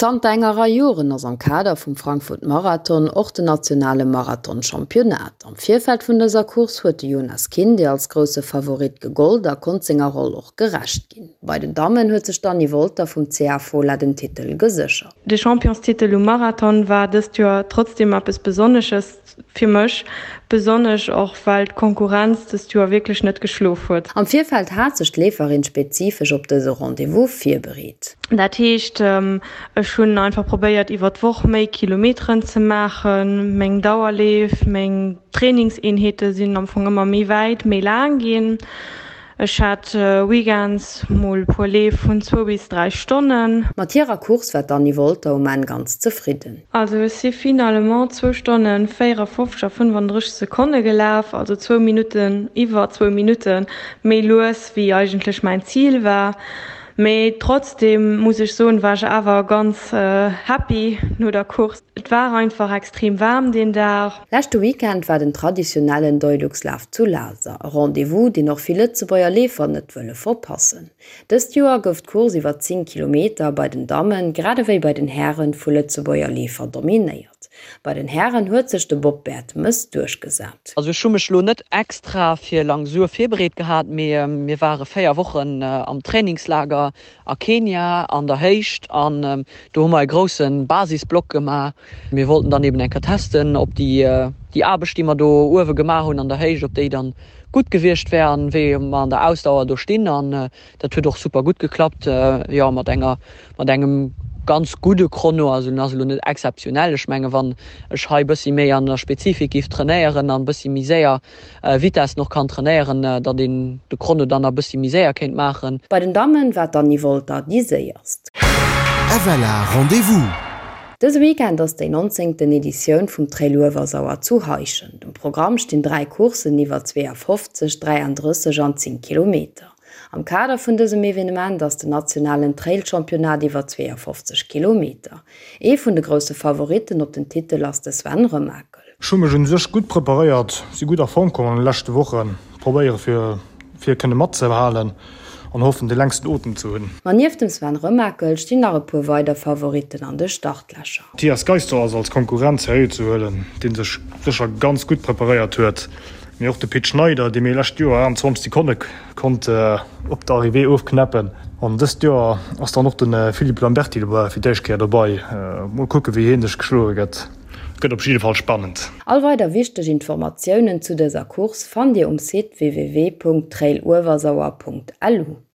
Zanter enger Rei Joren ass am Kader vum Frankfurt Marathon och den nationale Marathon-Championnat. Am Virfeld vun dëser Course huet de Jonas Kinde als grousse Favorit gegollt a konnt senger Roll och gerecht ginn. Bei den Dammen huet sech d'Anny Wolter vum CA Fola den Titel geséchert. De Championstitel um Marathon war dëst Joer trotzdeem eppes Besonnesches fir mech, besonnesch och well d'Konkurrenz dëst Joer wierklech net geschlof huet. Am Virfeld hat sech d'Leeferin spezifesch op dëse Rendez-vous virbereet. Dat heescht, ech hunn einfach probéiert iwwer d'Woch méi Kilometeren ze maachen. Meng Dauerleef, meng Trainingseenheete sinn am Fong ëmmer méi wäit, méi laang ginn. Ech hat weekends mol puer Leef vun zwou bis 3 Stonnen. Mat hirer Course war d'Anny Wolter um Enn ganz zefridden. Also ech si finalement zwou Stonnen 54 a 35 Sekonne gelaf, also zwou Minutten, iwwer zwou Minutte méi lues wéi eigentlech mäin Zil war. Mee trotzdem muss ech soen, war ech awer ganz happy no der Course. Et war einfach extrem waarm deen Dag. Leschte Weekend war den traditionellen Deuluxlaf zu Laser, e Rendez-vous, deen och vill Lëtzebuerger Leefer net wëlle verpassen. Dëst Joer gouf d'Course iwwer 10 Kilometer bei den Dammen, grad ewéi bei den Hären, vu Lëtzebuerger Leefer dominéiert. Bei den Hären huet sech de Bob Bertemes duerchgesat. Also ech hu mech lo net extra fir Langsur virbereet gehat, mee mir ware 4 Wochen am Trainingslager a Kenia an der Héicht an do hu mer e grousse Basisblock gemaach. Mir wollten dann eben eng Kéier testen, ob déi déi Aarbecht, déi mer do uewe gemaach hunn an der Héicht, ob déi dann gutt gewiescht wär an wéi mer an der Ausdauer do stinn. An dat huet och super gutt geklappt, jo mat enger mat engem ganz gudde Chrono. Also en ass elo net exzeptionell. Ech menge wann ech hei bëssi méi an der Spezifik giff trainéieren an bëssi méi séier Vitesse och kann trainéieren, datt een de Chrono dann nach bëssi méi séier kéint maachen. Bei den Dammen war d'Anny Wolter déi séierst. FLA Rendez-vous! Dëse Weekend ass déi nonzéngten Editioun vum Trail Uewersauer zu Heischent. Um Programm stinn 3 Courssen iwwer 52, 33 an 10 Kilometer. Am Kader vun dësem Evenement ass den nationalen Trail-Championnat iwwer 52 Kilometer. Ee vun de grousse Favoritten op den Titel ass de Sven Remakel. Ech hu mech un sech gutt preparéiert, si gutt a Form komm an de leschte Wochen, probéiere fir fir kënne matzehalen an hoffen de längsten Otem ze hunn. Ma nieft dem Sven Remakel stinn nach e puer weider Favoritten an de Startlächer. Mathias Geister ass als Konkurrent seriö ze huelen, dee sech sécher ganz gutt preparéiert huet. Mee och de Pit Schneider, dee mir lescht Joer 28 Sekonne konnt op der Arrivée ofknäppen. An dëst Joer ass dann och de Philippe Lamberty fir d'éischt Kéier dobei. Mol kucke wéi hie sech geschloe gëtt. Gëtt op jidde Fall spannend. All weider wichteg Informatiounen zu dëser Course fannt Dir um Site www.trailuewersauer.lu.